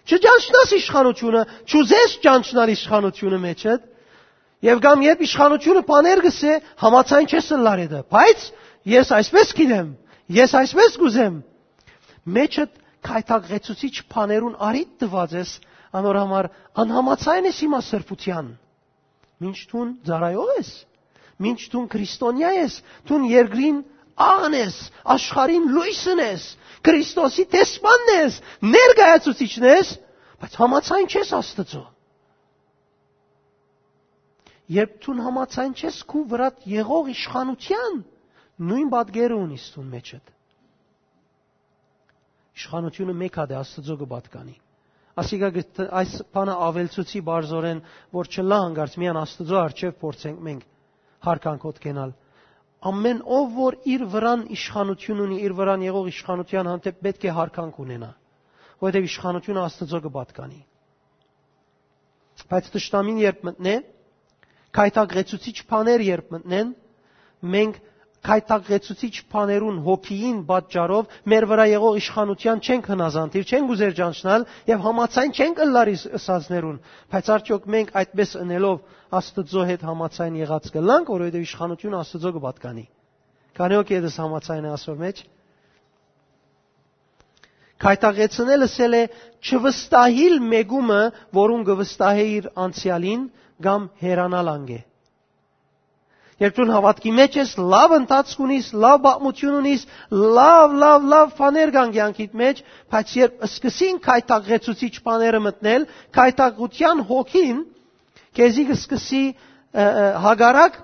չճանչնաս իշխանությունը, չուզես ճանչնալ իշխանությունը մէջդ, եւ կամ երբ իշխանությունը բաներ կ'ըսէ, համաձայն չես ըլլար հետը, բայց ես այսպես գիտեմ, ես այսպես կ'ուզեմ, մէջդ գայթակղեցուցիչ բաներուն առիթ տուած ես, անոր համար անհամաձայն ես հիմա սրբութեան։ Մինչ դուն ծառայող ես, մինչ դուն քրիստոնեա ես, դուն երկրին աղն ես, աշխարհին լոյսն ես, Քրիստոսի դեսպանն ես, ներկայացուցիչն ես, բայց համաձայն չես Աստուծոյ։ Երբ դուն համաձայն չես քու վրադ եղող իշխանութեան, նոյն պատկերը ունիս դուն մէջդ։ Իշխանությունը մէկ հատ է, Աստուծոյ կը պատկանի։ Ասիկա կը տ-, այս բանը աւելցուցի բարձորեն, որ չըլլայ հանկարծ միայն Աստուծոյ առջեւ փորձենք մենք հարգանքով կենալ։ Ամեն ով որ իր վրան իշխանություն ունի, իր վրան եղող իշխանութեան հանդէպ պէտք է հարգանք ունենայ, որովհետեւ իշխանությունը Աստուծոյ կը պատկանի։ Բայց թշնամին երբ մտնէ, գայթակղեցուցիչ բաներ երբ մտնեն, մենք գայթակղեցուցիչ բաներուն հոգիին պատճառով մեր վրայ եղող իշխանութեան չենք հնազանդիր, չենք ուզեր ճանչնալ եւ համաձայն չենք ըլլար իս-, ըսածներուն։ Բայց արդյոք մենք այդպես ընելով Աստուծոյ հետ համաձայն եղած կ'ըլլանք, որովհետեւ իշխանութիւնը Աստուծոյ կը պատկանի։ Քանի՞ հոգի ետս համաձայն է ասոր մեջ։ Գայթակղեցնել ըսել է չվստահիլ մեկումը, որուն կը վստահէ իր անցեալին, կամ հեռանալ անկէ։ Երբ դուն հաւատքի մեջ ես, լաւ ընթացք ունիս, լաւ պատմություն ունիս, լաւ, լաւ, լաւ բաներ կան կյանքիդ մեջ, բայց երբ սկսին գայթակղեցուցիչ բաները մտնել, գայթակղութեան հոգին քեզի կը սկսի, ը, ը, հակառակ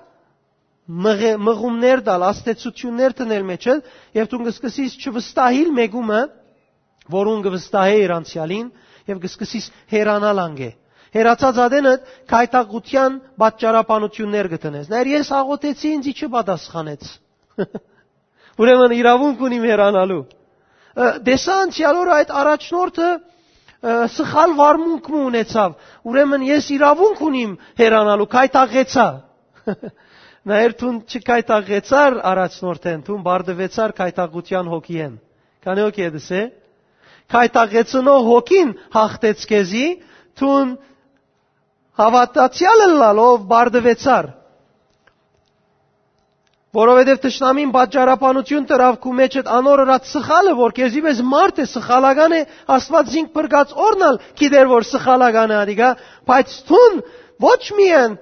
մղ-, մղումներ տալ, ազդեցութիւններ դնել մեջը, եւ դուն կը սկսիս չվստահիլ մեկումը, որուն կը վստահէ իր անցեալին, եւ կը սկսիս հեռանալ անկէ։ Հեռացած ատենը գայթակղութեան պատճառաբանութիւններ կը դնես։ Նայր, ես աղօթեցի, ինձի չպատասխանեց։ Ուրեմն իրաւունք ունիմ հեռանալու։ Ը, տեսա անցեալ օրը այդ առաջնորդը, ը, սխալ վարմունք մը ունեցավ։ Ուրեմն ես իրաւունք ունիմ հեռանալու, գայթակղեցայ։ Նայր, դուն չգայթակղեցար առաջնորդէն, դուն բարդուեցար գայթակղութեան հոգիէն։ Քանի՞ հոգի ետս է։ Գայթակղեցնող հոգին հաղթեց քեզի, դուն հաւատացեալ ըլլալով բարդուեցար։ Որովհետեւ թշնամին պատճառաբանություն դրաւ քու մեջդ անոր ըրած սխալը, որ քեզի պէս մարդ է, սխալական է, Աստուած զինք փրկած օրնալ գիտեր, որ սխալական է ադիկա, բայց դուն ոչ միայն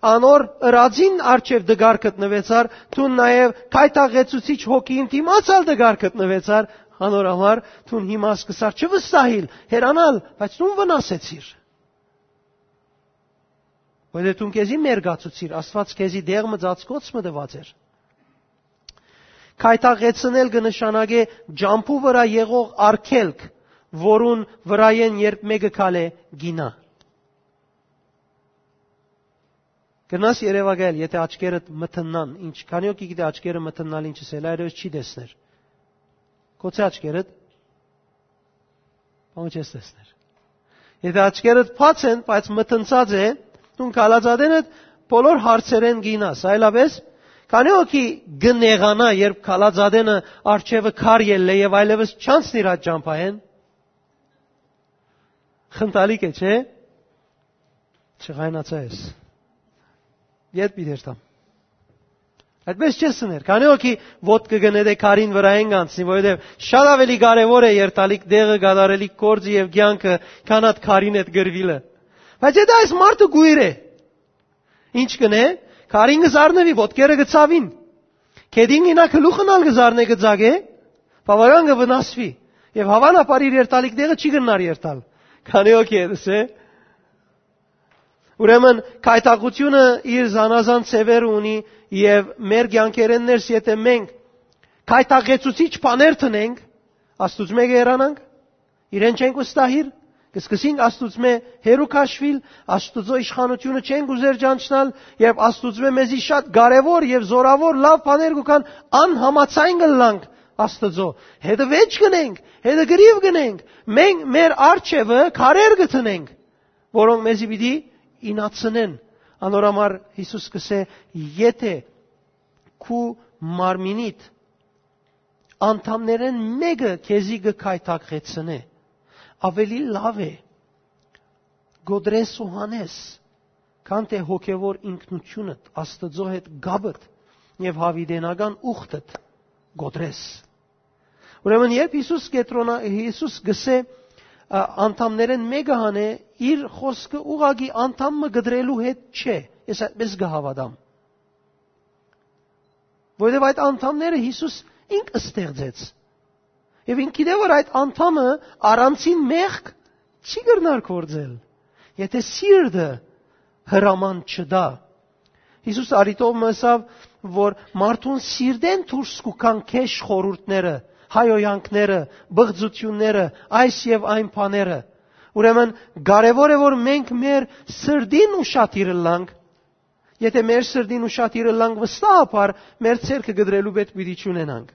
անոր ըրածին առջեւ դգար գտնուեցար, դուն նաեւ գայթակղեցուցիչ հոգին դիմաց ալ դգար գտնուեցար, անոր համար դուն հիմա սկսար չվստահիլ, հեռանալ, բայց դուն վնասեցիր։ Որովհետեւ դուն քեզի մերկացուցիր, Աստուած քեզի դեղ մը ծածկոց մը տուած էր։ Գայթակղեցնել կը նշանակէ ճամբու վրայ եղող արգելք, որուն վրայէն երբ մէկը քալէ, գինայ։ Կրնաս երեւակայել, եթե աչքերդ մթննան, ինչ, քանի՞ հոգի գիտէ աչքերը մթննալ ինչ ըսել, այրևս չի տեսներ։ Գոցե աչքերդ, բան չես տեսներ։ Եթե աչքերդ բաց են, բայց մթնցած է, դուն քալածատենդ բոլոր հարցերեն գինաս, այլապես քանի՞ հոգի կը նեղանայ, երբ քալածատենը արջևը քար ելլէ եւ այլևս չանցնիր այդ ճամբայեն։ Խնդալիք է, չէ՞։ Չղայնացայ ես։ Ետ պիտի երթամ։ Այդպես չես սներ։ Քանի՞ հոգի ոտքը կը նետէ քարին վրայէն կանցնի, որովհետեւ շատ աւելի կարեւոր է երթալիք դեղը, կատարելիք գործը եւ կեանքը, քան այդ քարին հետ գրվիլը։ Բայց եթե այս մարդը գույր է, ինչ կ'ընէ, քարին կը զարնուի, ոտքերը կը ցաւին։ Գետին գինայ, գլուխն ալ կը զարնէ, կը ձագէ, բաւական կը վնասուի։ Եւ հաւանաբար իր երթալիք դեղը չի կրնար երթալ։ Քանի՞ հոգի ետս է։ Ուրեմն, գայթակղութիւնը իր զանազան ձեւեր ունի եւ մեր կեանքերէն ներս, եթե մենք գայթակղեցուցիչ բաներ դնենք, Աստուծմէ կ'երանանք, իրեն չենք վստահիր, կը սկսենք Աստուծմէ հեռու քաշուիլ, Աստուծոյ իշխանութիւնը չենք ուզեր ճանչնալ, եւ Աստուծմէ մեզի շատ կարեւոր եւ զորաւոր լաւ բաներ կու գան, անհամաձայն կ'ըլլանք Աստուծոյ։ Հետը վեճ կ'ընենք, հետը գրիվ կ'ընենք, մենք մեր արջևը քարեր կը դնենք, որոնք մեզի պիտի ինացնեն։ Անոր համար Յիսուս կ'ըսէ. «Եթե քու մարմինիդ անդամներէն մէկը քեզի կը գայթակղեցնէ, աւելի լաւ է կոտրես ու հանես, քան թէ հոգեւոր ինքնութիւնդ, Աստուծոյ հետ կապդ եւ յաւիտենական ուխտդ կոտրես»։ Ուրեմն, երբ Յիսուս կեդրոնա-, Յիսուս գսէ, ա, անդամներէն մէկը հանէ, իր խօսքը ուղղակի անդամ մը կտրելու հետ չէ, ես այդպես կը հաւատամ։ Որովհետեւ այդ անդամները Յիսուս ինք ստեղծեց։ Եւ ինք գիտէ, որ այդ անդամը առանցին մեղք չի կրնար գործել, եթե սիրտը հրաման չտայ։ Յիսուս առիթով մը ըսաւ, որ մարդուն սիրտէն դուրս կու գան գէշ խորհուրդները, հայոյանքները, բղծությունները, այս եւ այն բաները։ Ուրեմն կարեւոր է, որ մենք մեր սրտին ուշադիր ըլլանք։ Եթե մեր սրտին ուշադիր ըլլանք, վստահաբար մեր ձեռքը կտրելու պետք պիտի չունենանք։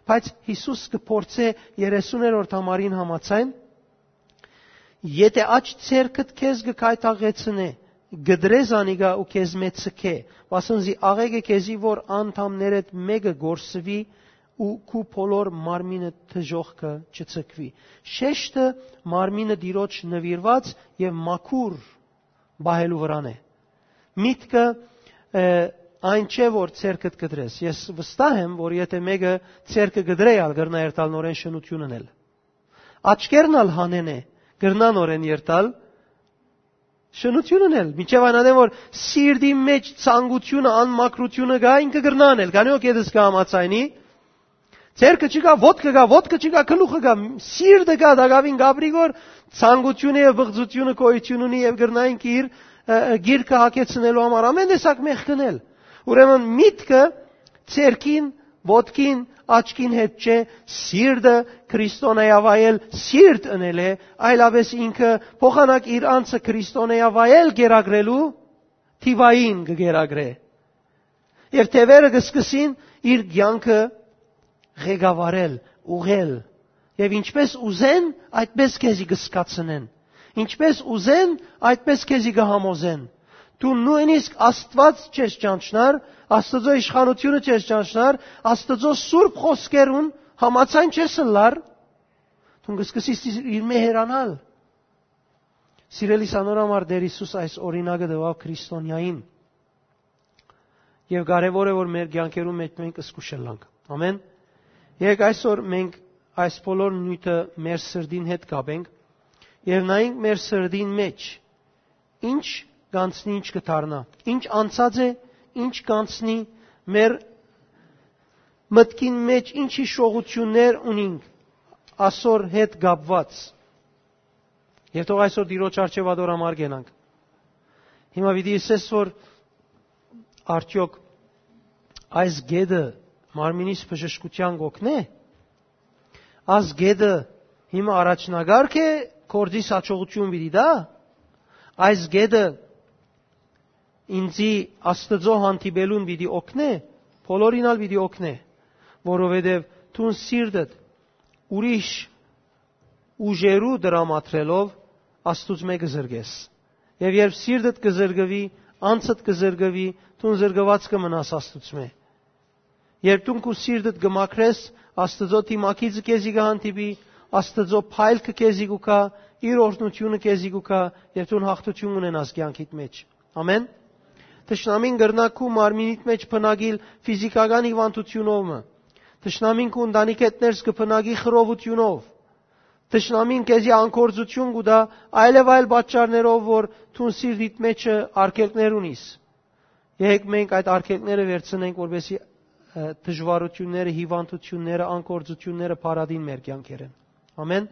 Բայց Յիսուս կը փորձէ երեսուներորդ համարին համաձայն, Եթէ աջ ձեռքդ քեզ կը գայթակղեցնէ, կտրե զանիկա ու քեզմէ ձգէ, վասն զի աղէկ է քեզի, որ անդամներէդ մէկը կորսուի ու քու բոլոր մարմինը դժոխքը չձգուի։ Շեշտը մարմինը Տիրոջ նուիրուած եւ մաքուր պահելու վրան է։ Միտքը, ը, այն չէ, որ ձեռքդ կտրես։ Ես վստահ եմ, որ եթէ մէկը ձեռքը կտրէ, ալ կրնայ երթալ նորէն շնութիւն ընել։ Աչքերն ալ հանեն է, կրնան նորէն երթալ շնութիւն ընել։ Մինչեւ այն ատեն, որ սիրտի մեջ ցանկութիւնը, անմաքրութիւնը կայ, ինքը կրնա անել։ Քանի որ կետս կը համաձայնի, ձեռքը չկա, ոտքը կա, ոտքը չկա, գլուխը կա, սիրտը կա, տակաւին կապրի, որ ցանկութիւնը եւ բղծութիւնը գոյութիւն ունի եւ կրնայինք իր, ը, ը, գիրքը հագեցնելու համար ամեն տեսակ մեղք ընել։ Ուրեմն միտքը ձեռքին, ոտքին, աչքին հետ չէ, սիրտը քրիստոնեայավայել սիրտ ընել է, այլապես ինքը փոխանակ իր անձը քրիստոնեայավայել կերակրելու թիվային կը կերակրէ։ Եւ թեւերը կը սկսին իր կեանքը ղեկավարել, ուղղել։ Եւ ինչպես ուզեն, այդպես քեզի կը զգացնեն։ Ինչպես ուզեն, այդպես քեզի կը համոզեն։ Դու նոյնիսկ Աստուած չես ճանչնար, Աստուծոյ իշխանութիւնը չես ճանչնար, Աստուծոյ սուրբ խօսքերուն համաձայն չես ըլլար, դուն կը սկսես իր մէ հեռանալ։ Սիրելի, սանոր համար Տեր Յիսուս այս օրինակը տուաւ քրիստոնեային։ Եւ կարեւոր է, որ մեր կեանքերուն մէջ մենք զգուշ ըլլանք։ Ամեն։ Երեկ այսօր մենք այս բոլոր նիւթը մեր սրտին հետ կապենք եւ նայենք մեր սրտին մեջ ինչ կանցնի, ինչ կդառնա, ինչ անցած է, ինչ կանցնի, մեր մտքին մեջ ինչ հիշողություններ ունինք ասոր հետ կապված։ Եւ թող այսօր Տիրոջ առջեւ ատոր համար գնանք։ Հիմա պիտի ասես, որ արդյոք այս գետը մարմինիս բժշկութեան կօգնէ։ Այս գետը հիմա առաջնակարգ է, գործիս յաջողութիւն պիտի տայ։ Այս գետը ինծի Աստուծոյ հանդիպելուն պիտի օգնէ, բոլորին ալ պիտի օգնէ, որովհետեւ դուն սիրտդ ուրիշ ուժերու դրամատրելով Աստուծմէ կը զրկես։ Եւ երբ սիրտդ կը զրկուի, անձդ կը զրկուի, դուն զրկուած կը մնաս Աստուծմէ։ Երբ դուն քու սիրտդ կը մաքրես, Աստուծոյ դիմագիծը քեզի կը հանդիպի, Աստուծոյ փայլքը քեզի կու գայ, իր օրհնութիւնը քեզի կու գայ, եւ դուն յաղթութիւն ունենաս կեանքիդ մեջ։ Ամեն։ Թշնամին կրնայ քու մարմինիդ մեջ բնակիլ ֆիզիքական հիվանդութիւնով մը։ Թշնամին քու ընտանիքէդ ներս կը բնակի խռովութիւնով։ Թշնամին քեզի անգործութիւն կու տայ այլեւայլ պատճառներով, որ դուն սիրտիդ մեջը արգելքներ ունիս։ Եկեք մենք այդ արգելքները վերցնենք, որպեսզի, ը, դժվարութիւնները, հիվանդութիւնները, անգործութիւնները փարատին մեր կեանքերէն։ Ամեն։